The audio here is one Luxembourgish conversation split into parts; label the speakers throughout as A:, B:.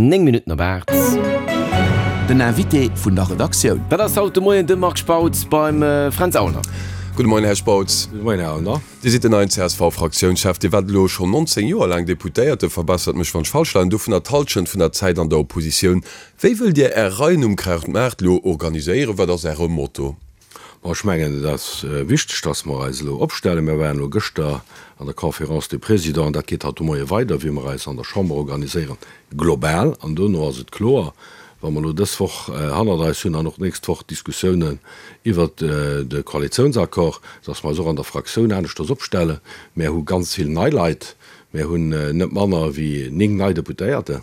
A: 9 Minutten op 8.
B: Den Invité vun der Redaktioun.
A: Dat ass haut de Moien de Marc Spautz beim Fränz Aulner.
C: Gudde Moien, Här Spautz.
D: Gudde Moien, Här Aulner.
C: Dir sidd den neien CSV-Fraktiounschef. Dir waart elo schonn 19 Joer laang Deputéierte, verbessert mech wann ech falsch leien, dovunner d'Hallschent vun der Zäit an der Oppositioun. Wéi wëllt Dir Är Reien um Krautmaart elo organiséieren? Wat ass Äre Motto?
D: Bon, ech mengen, et ass wichteg, dass mer eis elo opstellen. Mir waren elo gëschter an der Conférence des Présidents, an dat geet haut de Moie weider, wéi mer eis an der Chamber organiséieren, global. An dono ass et kloer, wa mer elo dës Woch hannert eis hunn an och d'nächst Woch d'Diskussiounen iwwert de Koalitiounsaccord, dass mer eis och an der Fraktioun aneschters opstellen. Mär hu ganz vill nei Leit. Mär hunn net manner wéi 9 nei Deputéierten.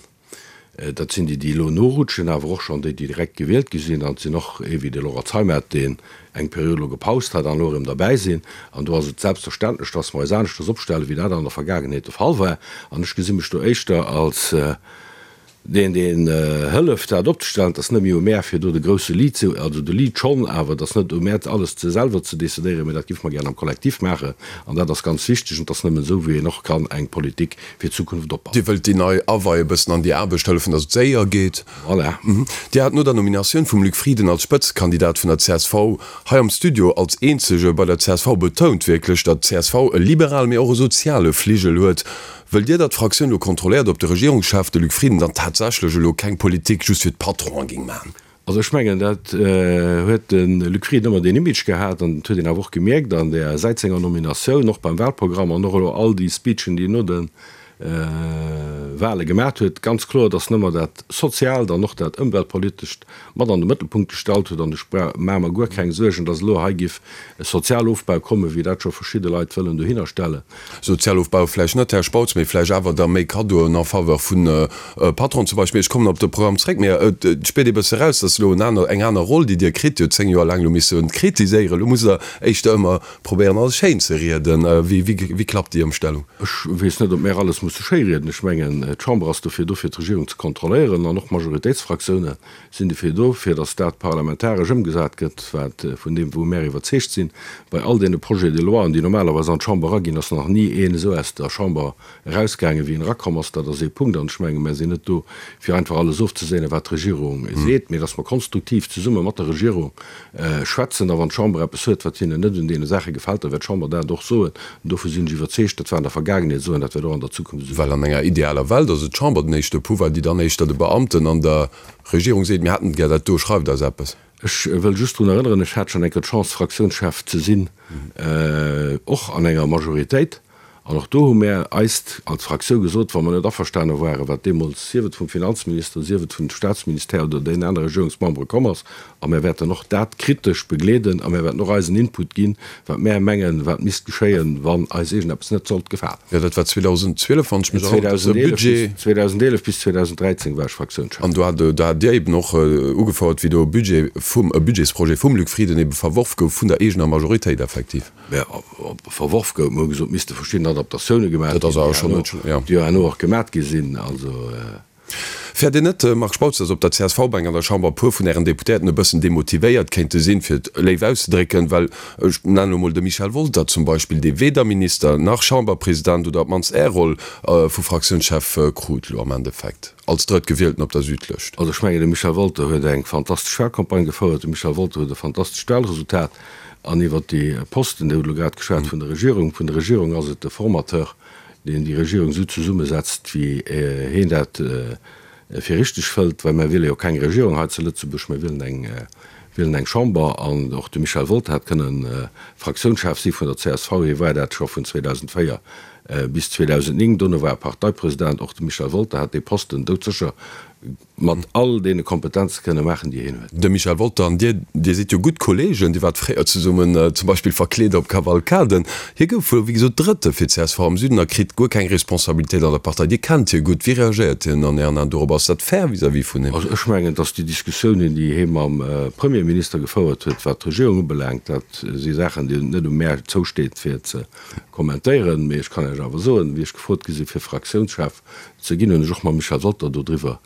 D: Dat sinn déi, déi elo norutschen, awer och schonn déi, déi direkt gewielt gi sinn. An et sinn och ee wéi de Laurent Zeimet, deen eng Period elo gepaust hat an elo erëm derbäi sinn. An do ass et selbstverständlech, dass mer eis aneschters opstellen, wéi dat an der Vergaangenheet de Fall war. An ech gesi mech do éischter als deen, deen hëlleft, dat opzestellen. Et ass net méi u mär, fir do de grousse Lead ze, also de Lead schonn, awer et ass net u mär, alles ze selwer ze decidéieren, mä dat géife mer gären am Kollektiv maachen. An dat ass ganz wichteg. An et ass nëmmen esou, wéi een och kann eng Politik fir d'Zukunft opbauen.
C: Dir wëllt déi nei Awei e bëssen an déi Aarbecht hëllefen, datt et séier geet.
D: Voilà.
C: Dir hat no der Nominatioun vum Luc Frieden als Spëtzekandidat vun der csv hei am Studio als eenzege bei der csv betount wierklech, datt d'CSV e liberale, mee och e soziale Fligel huet. Wëllt Dir, datt d'Fraktioun elo kontrolléiert, ob de Regierungschef, de Luc Frieden, dann tatsächlech elo keng Politik just fir d'Patronen géing maachen?
D: Also ech mengen, dat huet de Luc Frieden ëmmer deen Image gehat an dat huet een awer och gemierkt an där säit senger Nominatioun, och beim Wahlprogramm an och elo all déi Speechen, déi en no de Wahle gemat huet, ganz kloer, datt en ëmmer dat Soziaalt an och dat Ëmweltpolitescht mat an de Mëttelpunkt gestallt huet. An ech maache mer guer keng Suergen, datt elo hei giff e Sozialofbau kommen, wéi dat scho verschidde Leit wëllen dohinner stellen.
C: Sozialofbau vläicht net, Här Spautz, mee vläicht awer da méi Kaddoen en faveur vun Patronen zum Beispill. Ech kommen op de Programm zréck, mee et spiert ee bësse raus, dass elo en aner, eng aner Roll, déi Dir kritt. Dir hutt 10 Joer laang elo misse kritiséieren, elo musst Der éischter ëmmer probéieren, alles schéin ze rieden. Wéi, wéi, wéi klappt déi Ëmstellung?
D: Ech weess net, ob mär alles musse schéi rieden. Ech mengen, d'Chamber ass dofir do, fir d'Regierung ze kontrolléieren, an och d'Majoritéitsfraktiounen sinn dofir do, fir datt dat parlamentaresch ëmgesat gëtt, wat, vun deem, wou mär iwwerzeegt sinn. Bei all deene Projets de loien, déi normalerweis an d'Chamber eraginn, ass nach ni een esou aus der Chamber erausgaangen, wéi en erakomm ass. Dat ass ee Punkt. An ech menge mär sinn net do, fir einfach alles ofzeséinen, wat d'Regierung seet, mee datt mer konstruktiv zesumme mat der Regierung schwätzen. A wann d'Chamber eppes huet, wat hinnen net un deene Saache gefält, da wäert d'Chamber dat och soen. An dovun sinn ech iwwerzeegt. Dat war an der Vergaangenheet esou an dat wäert och an der Zukunft esou
C: Well an enger idealer Welt ass et d'Chamber den éischte Pouvoir, déi dann éischter de Beamten an der Regierung seet, mir hätten gär dat do, schreift eis eppes.
D: Ech wëll just drun erënneren, ech hat schonn eng Kéier d'Chance, Fraktiounschef ze sinn, och an enger Majoritéit. An och do hu mär eist als Fraktioun gesot, wa mer net averstane waren, wat deemools, sief et vum Finanzminister, sief et vun de Statsministère oder deenen anere Regierungsmembere komm ass, a mär wäerten och dat kritesch begleeden a mär wäerten och eisen Input ginn, wat mär mengen, wat misst geschéien, wann eis iergendeppes net sollt gefalen.
C: Jo, dat war 2012, wann ech mech erënneren, de Budget.
D: 2011 bis 2013 war ech Fraktiounschef.
C: An do hat, do hat Dir eben och ugefouert, wéi do e Budget vum, e Budgetsprojet vum Luc Frieden ebe verworf gouf vun der eegener Majoritéit effektiv.
D: Mä verworf gouf. Mer hu gesot, et misste verschidden Adaptatioune gemaach ginn, déi herno och gemaat gi sinn. Also.
C: Fäert Dir net, Marc Spautz, datt op der CSV-Bänk an der Chamber e puer vun Ären Deputéierten e bëssen demotivéiert kéinte sinn, fir et léif auszedrécken? Well ech nennen elo mol de Michel Wolter zum Beispill, dee weder Minister nach Chamberpresident oder op d'mannst Är Roll vu Fraktiounschef krut elo am Endeffekt als Drëttgewielten op der Südlëscht.
D: Also ech mengen, de Michel Wolter huet eng fantastesch Wahlcampagne gefouert, de Michel Wolter huet e fantastescht Wahlresultat. An iwwert déi Posten, Dir hutt elo grad geschwat vun der Regierung, vun der Regierung ass et de Formateur, deen déi Regierung esou zesummesetzt, wéi heen dat fir richteg fëllt, well mir wiele jo keng Regierung hei zu Lëtzebuerg, mir wielen eng, wielen eng Chamber. An och de Michel Wolter hätt kënnen Fraktiounschef si vun der csv, hie war dat scho vun 2004 bis 2009, dono war e Parteipresident. Och de Michel Wolter hätt dee Posten doudsécher mat all deene Kompetenze kënne maachen, déi hien huet.
C: De Michel Wolter an Dir, Dir sidd jo gutt Kolleegen, Dir waart fréier zesummen zum Beispill verkleet op Kavalkaden. Hie gouf wuel, wéi gesot, Drëtte fir csv am Süden a kritt guer keng Responsabilitéit an der Partei. Dir kennt hie gutt. Wéi reagéiert hien an Ären Aen dorop? Ass dat fair vis-à-vis vun him?
D: Also ech mengen, datt déi Diskussiounen, déi hie mam Premierminister gefouert huet, wat d'Regierung ubelaangt, dat si Saachen, déi et net u mär zousteet fir ze kommentéieren. Mee ech kann Iech awer soen, wéi ech gefrot gi si fir Fraktiounschef ze ginn, hunn ech och mam Michel Wolter dodriwwer.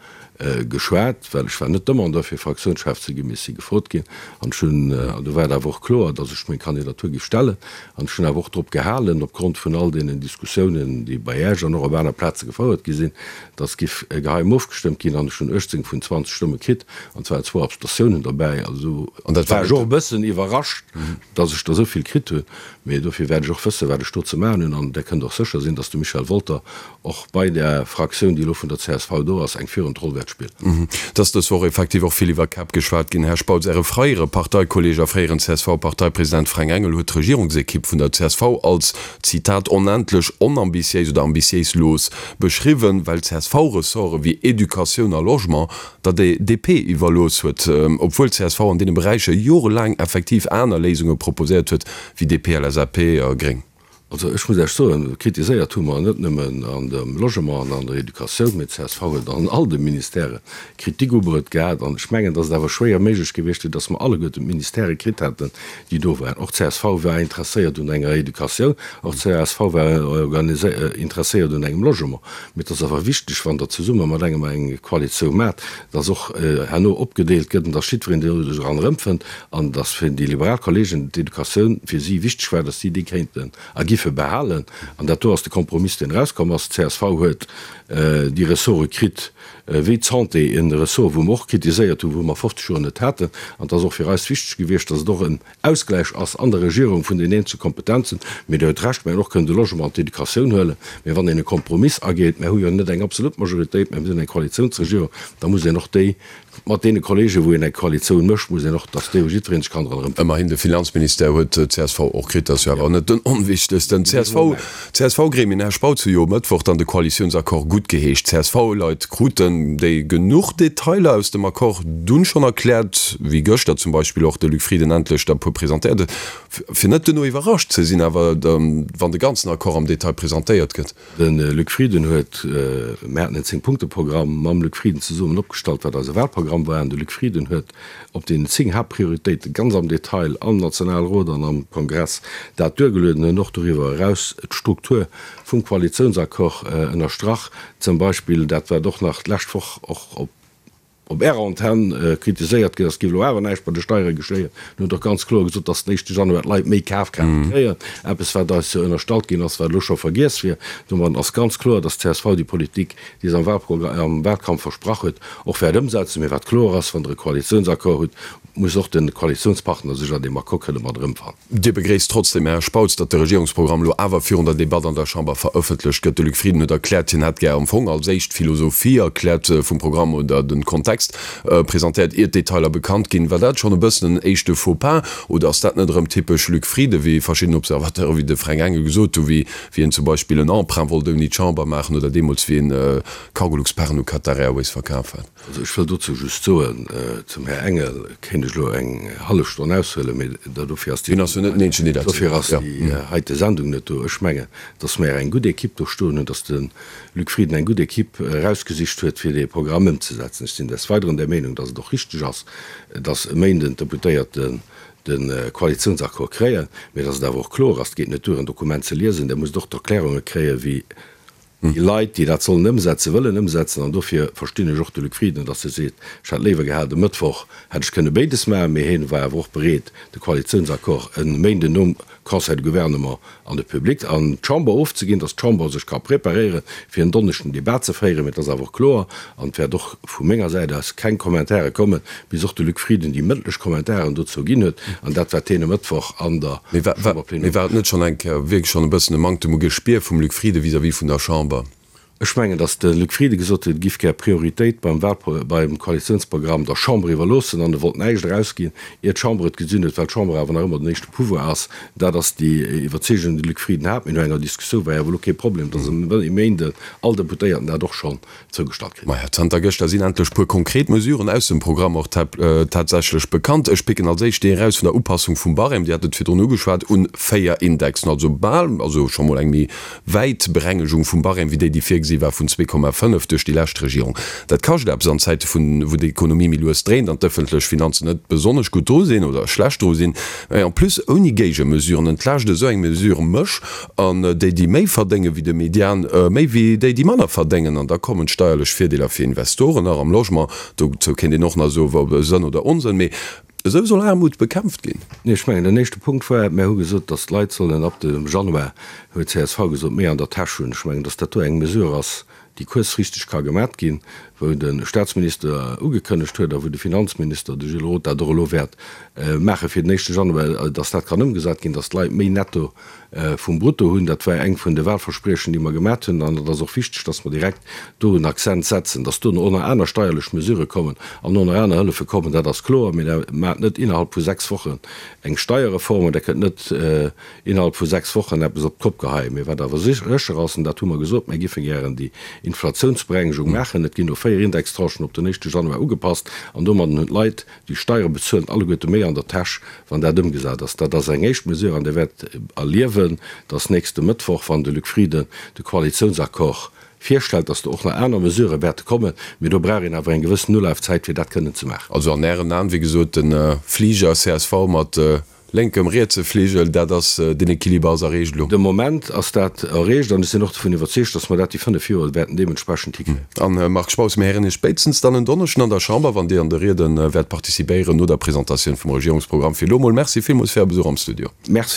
D: Geschwat, well ech war net Demandeur fir Fraktiounschef ze ginn, mee ech si gefrot ginn an ech hunn, an do war et awer och kloer, datt ech meng Kandidatur géif stellen an ech hunn awer och drop gehalen, opgrond vun all deenen Diskussiounen, déi bei Iech an och op aner Plaze gefouert gi sinn, datt géif geheim ofgestëmmt ginn an ech hunn 18 vun 20 Stëmme kritt an et waren zwou Abstentiounen derbäi. Also do war ech och e bëssen iwwerrascht, datt ech der esou vill kritt hunn, mee dofir wäert ech och wëssen, wat ech do ze maachen hunn an Der kënnt och sécher sinn, datt de Michel Wolter och bei där Fraktioun, déi elo vun der csv do ass, eng führend Roll wäert spillen.
C: Et ass dës Woch effektiv och vill iwwer Käpp geschwat ginn. Här Spautz, Äre freiere Parteikolleeg a fréieren CSV-Parteipresident Fränk Engel huet d'Regierungsekipp vun der csv als, Zitat, onendlech onambitiéis oder ambitiéislos beschriwwen, well d'CSV-Ressorte wéi Educatioun a Logement der DP iwwerlooss huet, obwuel d'CSV an deene Beräicher jorelaang effektiv aner Léisunge proposéiert huet wéi DP, LSAP a Gréng.
D: Also ech muss Iech soen, kritiséiert hu mer net nëmmen an dem Logement an an der Educatioun, mee d'CSV huet an all de Ministèrë Kritik ubruet gehat. An ech mengen, datt et awer schwéier méiglech gewiescht wier, datt mer alleguerten d'Ministèrë kritt hätten, déi do waren. Och d'CSV war interesséiert un enger Educatioun, och d'CSV war interesséiert un engem Logement. Mee et ass awer wichteg, wann Der zesumme mat engem eng Koalitioun maacht, datt och herno opgedeelt gëtt an datt jiddwereen do sech eran erëmfënnt. An dass fir déi liberal Kollegen d'Educatioun fir si wichteg war, dass si déi kéinten a giffe behalen. An dat do ass de Kompromiss, deen erauskomm ass. D'CSV huet déi Ressorte kritt wéi d'Santé, e Ressort, wou mer och kritiséiert hunn, wou mer 50 Joer net haten. An et ass och fir eis wichteg gewiescht, dass et och en Ausgläich ass an der Regierung vun den eenzelne Kompetenzen. Mee Dir huet Recht, mer hätten och kënnen de Logement an d'Educatioun huelen. Mee wann een e Kompromiss ageet, mer hu jo net eng absolut Majoritéit, mä mir sinn eng Koalitiounsregierung, da muss een och déi Mat deene Kollegen, wou een eng Koalitioun mécht, muss een och, dass déi, wou jiddweree sech kann dran erëmfannen.
C: Ëmmerhin, de Finanzministère huet d'CSV och kritt, dat ass jo awer net den onwichtegsten. D'CSV, d'CSV-Gremien, Här Spautz, hu jo e Mëttwoch dann de Koalitiounsaccord guttgeheescht. D'CSV-Leit kruten déi genuch Detailer aus dem Accord dunn schonn erkläert, wéi gëschter zum Beispill och de Luc Frieden endlech der e puer presentéiert huet, fir net duerno iwwerrascht ze sinn awer, wann de ganzen Accord am Detail presentéiert gëtt.
D: De Luc Frieden huet, mir haten en Zéng-Punkte-Programm mam Luc Frieden zesummen opgestallt, wat eise Wahlprogramm war, an de Luc Frieden huet op deenen 10 Haaptprioritéite ganz am Detail am Nationalrot an am Kongress dat duergelueden, huet och doriwwer eraus d'Struktur vum Koalitiounsaccord ënnerstrach, zum Beispill dat wat och nach d'lescht Woch och op op Ärer Antenn kritiséiert ginn ass, géif elo awer näischt bei de Steiere geschéien. Dir hutt och ganz kloer gesot, dass den éischte Januar d'Leit méi Kafkraaft kréien, eppes wat eis jo ënnerstallt ginn ass, wat elo scho vergiess wier. Domadden ass ganz kloer, dass d'CSV déi Politik, déi se am Wahlprogramm, am Wahlkampf versprach huet, och wäert ëmsetzen. Mee wat kloer ass, Wann Der e Koalitiounsaccord hutt, muss och de Koalitiounspartner sech an deem Accord kënne mat erëmfannen.
C: Dir begréisst trotzdeem, Här Spautz, datt de Regierungsprogramm elo awer virun der Debatt an der Chamber verëffentlecht gëtt. De Luc Frieden huet erkläert, hien hätt gär am Fong als éischt d'Philosophie erkläert vum Programm oder de Kontext presentéiert, ier d'Detailer bekannt ginn. War dat schonn e bëssen en éischte Faux-pas oder ass dat net erëm typesch Luc Frieden, wéi verschidden Observateure wéi de Fränk Engel gesot hu, wéi wéi en zum Beispill en Emprunt wollt ouni d'Chamber maachen oder deemools wéi en Cargolux-Paren u Qatar Airways verkaf hat?
D: Also ech wëll dozou just soen, zum Här Engel kéint ech elo eng hallef Stonn aushuelen, mee dofir ass déi dofir ass déi heite Sendung net do. Ech mengen, datt mer eng gutt Equipe do stoen hunn, datt de Luc Frieden eng gutt Equipe erausgesicht huet, fir dee Programm ëmzesetzen. Ech sinn des Weideren der Meenung, datt et och richteg ass, datt e Méinden d'Deputéierten de Koalitiounsaccord kréien, mee datt et awer och kloer ass, et geet net duer en Dokument ze liesen, Der musst och d'Erklärunge kréien, wéi Déi Leit, déi dat sollen ëmsetzen, wëllen ëmsetzen. An dofir verstinn ech och de Luc Frieden, datt e seet, ech hätt léiwer gehat, e Mëttwoch hätt ech kënne béides maachen. Mee hien war awer och bereet, de Koalitiounsaccord e Méinden nom Conseil de Gouvernement an de Public, an d'Chamber ofzeginn, datt d'Chamber sech ka preparéieren, fir en Donneschden den Debat ze féieren. Mee et ass awer och kloer, an et wäert och vu menger Säit aus keng Kommentare kommen, bis och de Luc Frieden déi mëndlech Kommentaren dozou ginn huet an dat, wat hien e Mëttwoch an der
C: Mee war, war, mee war et net schonn eng Kéier wierklech schonn e bëssen e Manktem u Gespier vum Luc Frieden vis-à-vis vun der Chamber?
D: Ech mengen, datt de Luc Frieden gesot huet, e giff gär Prioritéit beim Wahlpro, beim Koalitiounsprogramm der Chamber iwwerloossen an e wollt näischt erausginn, ier d'Chamber et gesinn huet, well d'Chamber awer nach ëmmer den éischte Pouvoir ass. Dat ass déi Iwwerzeegung, déi de Luc Frieden hat. Mee no enger Diskussioun war jo awer elo kee Problem, datt e Méinden all Deputéierten dat och schonn zougestallt
C: kritt. Maja, zanter gëschter sinn endlech puer konkret Mesuren aus dem Programm och tatsächlech bekannt. Ech picken als éischt déi eraus vun der Upassung vum Barème, Dir hat et virdrun ugeschwat, un 4 Indexen, also bal, also scho mol eng méi wäit Berengegung vum Barème wéi déi, déi virgesi. virgesi war vun 2,5 duerch déi lescht Regierung. Dat kascht eppes an Zäite vun, wou d'Ekonomie méi lues dréint an d'ëffentlech Finanzen net besonnesch gutt dru sinn oder schlecht dru sinn. Mä en plus ouni Géigemesuren entlaascht esou eng Mesure mech an déi, déi méi verdéngen wéi de Median, méi wéi déi, déi manner verdéngen. An da kommen d'steierlech Virdeeler fir Investoren nach am Logement. Dozou kéint een och nach soen, ob Sënn oder Onsënn. Mee esou soll Aarmut bekämpft ginn.
D: Nee, ech mengen, den éischte Punkt war, mär hu gesot, datt d'Leit sollen ab dem Januar, huet csv gesot, méi an der Täsch hunn. Ech mengen, datt dat do eng Mesure ass, déi kuerzfristeg ka gemat ginn, wou de Statsminister ugekënnegt huet a wou de Finanzminister, de Gilles Roth, dat och elo wäert maache fir den éischte Januar, datt dat kann ëmgesat ginn, datt d'Leit méi netto vum Brutto hunn. Dat war eng vun de Wahlverspriechen, déi mer gemat hunn. An et ass och wichteg, datt mer direkt do en Accent setzen. Datt dono och nach aner steierlech Mesurë kommen an och nach aner Hëllefe kommen, dat ass kloer. Mee Der maacht net innerhalb vu sechs Wochen eng Steierreform an Der kënnt net innerhalb vu sechs Wochen eppes op d'Kopp geheien. Mee wat awer sécher ass, an dat hu mer gesot, Mir géife gären déi Inflatiounsberengegung maachen. Et ginn elo véier Indextranchen op den éischte Januar ugepasst an domadden hunn d'Leit, déi Steiere bezuelen, alleguerte méi an der Täsch, wann dat ëmgesat ass. Dat ass eng éischt Mesure an Dir wäert erliewen, dass nächste Mëttwoch, wann de Luc Frieden de Koalitiounsaccord virstellt, dass do och nach aner Mesurë wäerte kommen. Mee do brauch een awer eng gewëssen Ulafzäit, fir dat kënnen ze maachen.
C: Also an Ären Aen, wéi gesot, de Fliger csv mat Lénkem, rietse Fligel, dat ass, den Equiliber ass erreecht elo.
D: De Moment ass dat erreecht an ech sinn och dovun iwwerzeegt, dass mer dat déi 5 Joer wäerten deementsprechend hikréien.
C: An, Här Marc Spautz, mir héieren Iech spéitstens dann en Donneschden an der Chamber, wann Dir an de Riede wäert participéieren no der Presentatioun vum Regierungsprogramm. Fir elo emol Merci villmools fir Är Besuch am Studio.
D: Merci.